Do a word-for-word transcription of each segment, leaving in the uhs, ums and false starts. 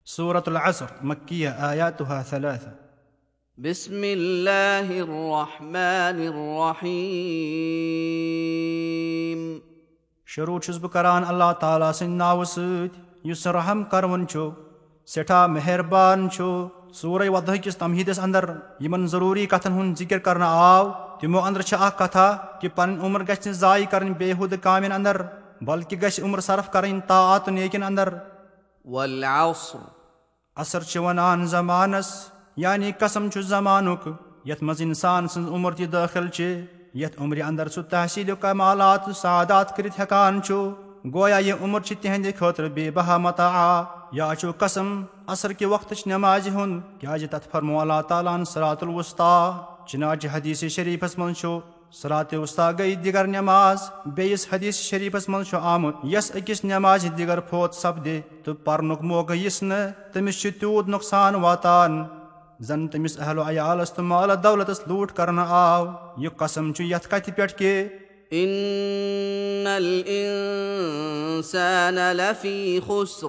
سورة العصر، مكية، آياتها ثلاثة. بسم الله الرحمن الرحيم. شروع چھُس بہٕ کران اللہ تعالیٰ سٕنٛدِ ناوٕ سۭتۍ، یُس رحم کرون چھُ، سٮ۪ٹھاہ مہربان چھُ۔ سورہ وضحاء کِس تمہیٖدس اندر یِمن ضروٗری کتھن ہُنٛد ذِکر کرنہٕ آو، تِمو اندر چھِ اکھ کتھا کہِ پنٕنۍ عمر گژھِ نہٕ ضایع کرٕنۍ بیہودٕ کامٮ۪ن اندر، بلکہِ گژھِ عمر صرف کرٕنۍ طاعات و نیکین اندر۔ والعصر۔ عصر چھِ ونان زمانس، یعنی قسم چھُ زمانُک، یتھ منٛز انسان سٕنٛز عمر تہِ دٲخل چھِ، یتھ عمرِ اندر سُہ تحصیل کمالات و سعادات کٔرِتھ ہٮ۪کان چھُ۔ گویا یہِ عمر چھِ تِہنٛدِ خٲطرٕ بے بہا متاع۔ یا چھُ قسم عصر کہِ وقتٕچ نمازِ ہُنٛد، کیازِ تتھ فرموو اللہ تعالیٰ ہن صراط الوسطی۔ چنانچہ حدیث شریفس منٛز چھُ، صراط وسطی گٔیہِ دِگر نماز۔ بیٚیِس حدیث شریفس منٛز چھُ آمُت، یس أکِس نمازِ دِگر فوت سپدِ تہٕ پرنُک موقعہٕ یِس نہٕ، تٔمِس چھُ تیوٗت نۄقصان واتان، زن تٔمِس اہل و عیالس تہٕ مال دولتس لوٗٹھ کرنہٕ آو۔ یہِ قسم چھُ یتھ کتھِ پٮ۪ٹھ کہِ إن الإنسان لفي خسر۔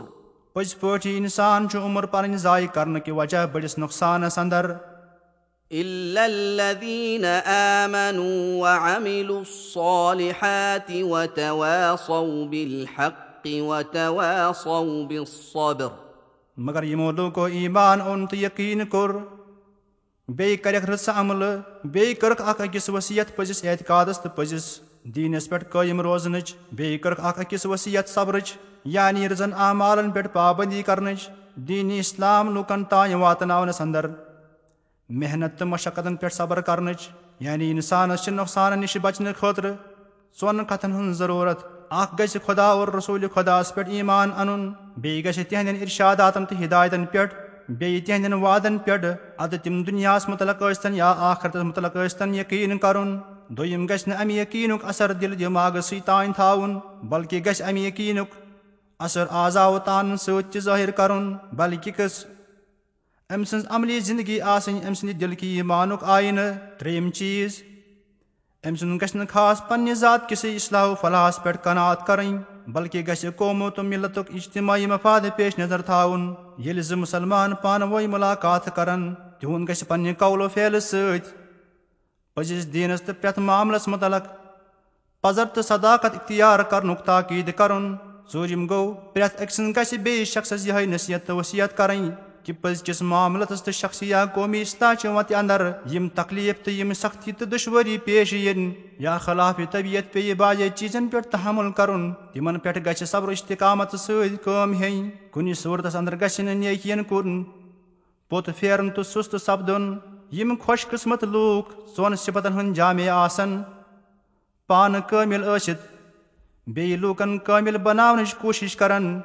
پٔزۍ پٲٹھۍ انسان چھُ عمر پنٕنۍ ضایع کرنہٕ کہِ وجہ بٔڑِس نۄقصانس اندر۔ إلا الذين آمنوا وعملوا الصالحات وتواصوا بالحق وتواصوا بالصبر۔ مگر یِمو لوٗکو ایمان اوٚن تہٕ یقیٖن کوٚر، بیٚیہِ کٔرِکھ رٕژٕ عملہٕ، بیٚیہِ کٔرٕکھ اکھ أکِس وصیت پٔزِس اعتقادس تہٕ پٔزِس دیٖنس پٮ۪ٹھ قٲیِم روزنٕچ، بیٚیہِ کٔرٕکھ اکھ أکِس وصیت صبرٕچ، یعنی رٕژن اعمالن پٮ۪ٹھ پابندی کرنٕچ، دیٖنِ اسلام لوٗکن تام واتناونس اندر محنت تہٕ مشقتن پٮ۪ٹھ صبر کرنٕچ، یعنی انسانس چھِ نۄقصانن نِش بچنہٕ خٲطرٕ ژۄن کتھن ہٕنٛز ضروٗرت۔ اکھ گژھِ خدا اور رسول خداس پٮ۪ٹھ ایمان انُن، بیٚیہِ گژھِ تِہنٛدٮ۪ن ارشاداتن تہٕ ہدایتن پٮ۪ٹھ، بیٚیہِ تِہنٛدٮ۪ن وعدن پٮ۪ٹھ، ادٕ تِم دُنیاہس متعلق ٲسۍتن یا آخرتس متعلق ٲسۍتن، یقیٖن کرُن۔ دوٚیِم گژھِ نہٕ امہِ یقیٖنُک اثر دِل دٮ۪ماغس سۭتۍ تانۍ تھاوُن، بلکہِ گژھِ امہِ یقیٖنُک اثر اعضاو تانن سۭتۍ تہِ ظٲہر کرُن، بلکہِ گژھِ أمۍ سٕنٛز عملی زندگی آسٕنۍ أمۍ سٕنٛدِ دِل کہِ ایمانُک آینہٕ۔ ترٛیٚیِم چیٖز، أمۍ سُنٛد گژھِ نہٕ خاص پننہِ ذات کِسٕے اصلاح و فلاحس پٮ۪ٹھ قناعت کرٕنۍ، بلکہِ گژھِ قومو تہٕ ملتُک اجتماعی مفاد پیش نظر تھاوُن۔ ییٚلہِ زٕ مسلمان پانہٕ وٲنۍ ملاقات کرن، تِہُنٛد گژھِ پننہِ قول و فعلہٕ سۭتۍ پٔزِس دیٖنس تہٕ پرٛٮ۪تھ معاملس متعلق پزر تہٕ صداقت اختیار کرنُک تاکید کرُن۔ ژوٗرِم گوٚو، پرٛٮ۪تھ أکۍ سٕنٛز گژھِ بیٚیِس شخصس یِہے نصیحت تہٕ وصیت کرٕنۍ کہِ پٔزۍ کِس معاملتس تہٕ شخصی یا قومی اصلاح چہِ وتہِ اندر یِم تکلیف تہٕ یِم سختی تہٕ دشوٲری پیش یِن یا خلاف طبیعت پیٚیہِ بعضے چیٖزن پٮ۪ٹھ تحمل کرُن، تِمن پٮ۪ٹھ گژھِ صبر و استقامت سۭتۍ کٲم ہیٚنۍ۔ کُنہِ صورتس اندر گژھِ نہٕ نیکین کُن پوٚت پھیرُن تہٕ سُست سپدُن۔ یِم خۄش قسمت لوٗکھ ژۄن صفتن ہٕنٛدۍ جامع آسن، پانہٕ کٲمِل ٲسِتھ بیٚیہِ لوٗکن کٲمِل بناونٕچ کوٗشِش کرن،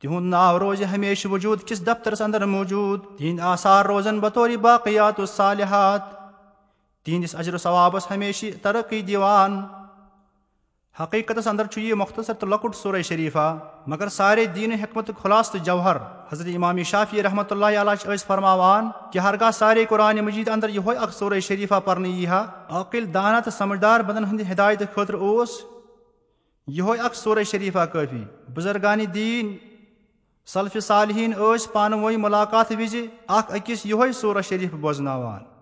تِہُنٛد ناو روزِ ہمیشہٕ وجوٗد کِس دفترس اندر موجوٗد۔ تِہنٛدۍ آثار روزن بطور باقیات الصالحات تِہنٛدِس اجر و ثوابس ہمیشہٕ ترقی دِوان۔ حقیقتس اندر چھُ یہِ مختصر تہٕ لۄکُٹ سورہ شریفہ، مگر سارے دین حکمت خلاصہ تہٕ جوہر۔ حضرت امام شافعی رحمۃ اللہ علیہ چھِ ٲسۍ فرماوان کہِ ہرگاہ سارے قرآن مجید اندر یِہوے اکھ سورہ شریفہ پرنہٕ یی ہا، عاقل، دانا تہٕ سمجھدار بندن ہٕنٛدِ ہدایتہٕ خٲطرٕ اوس یِہوے اکھ سورہ شریفہ کٲفی۔ بزرگان دین سلف صالحین ٲسۍ پانہٕ وٲنۍ ملاقات وِزِ اکھ أکِس یِہوے سورہ شریف بوزناوان۔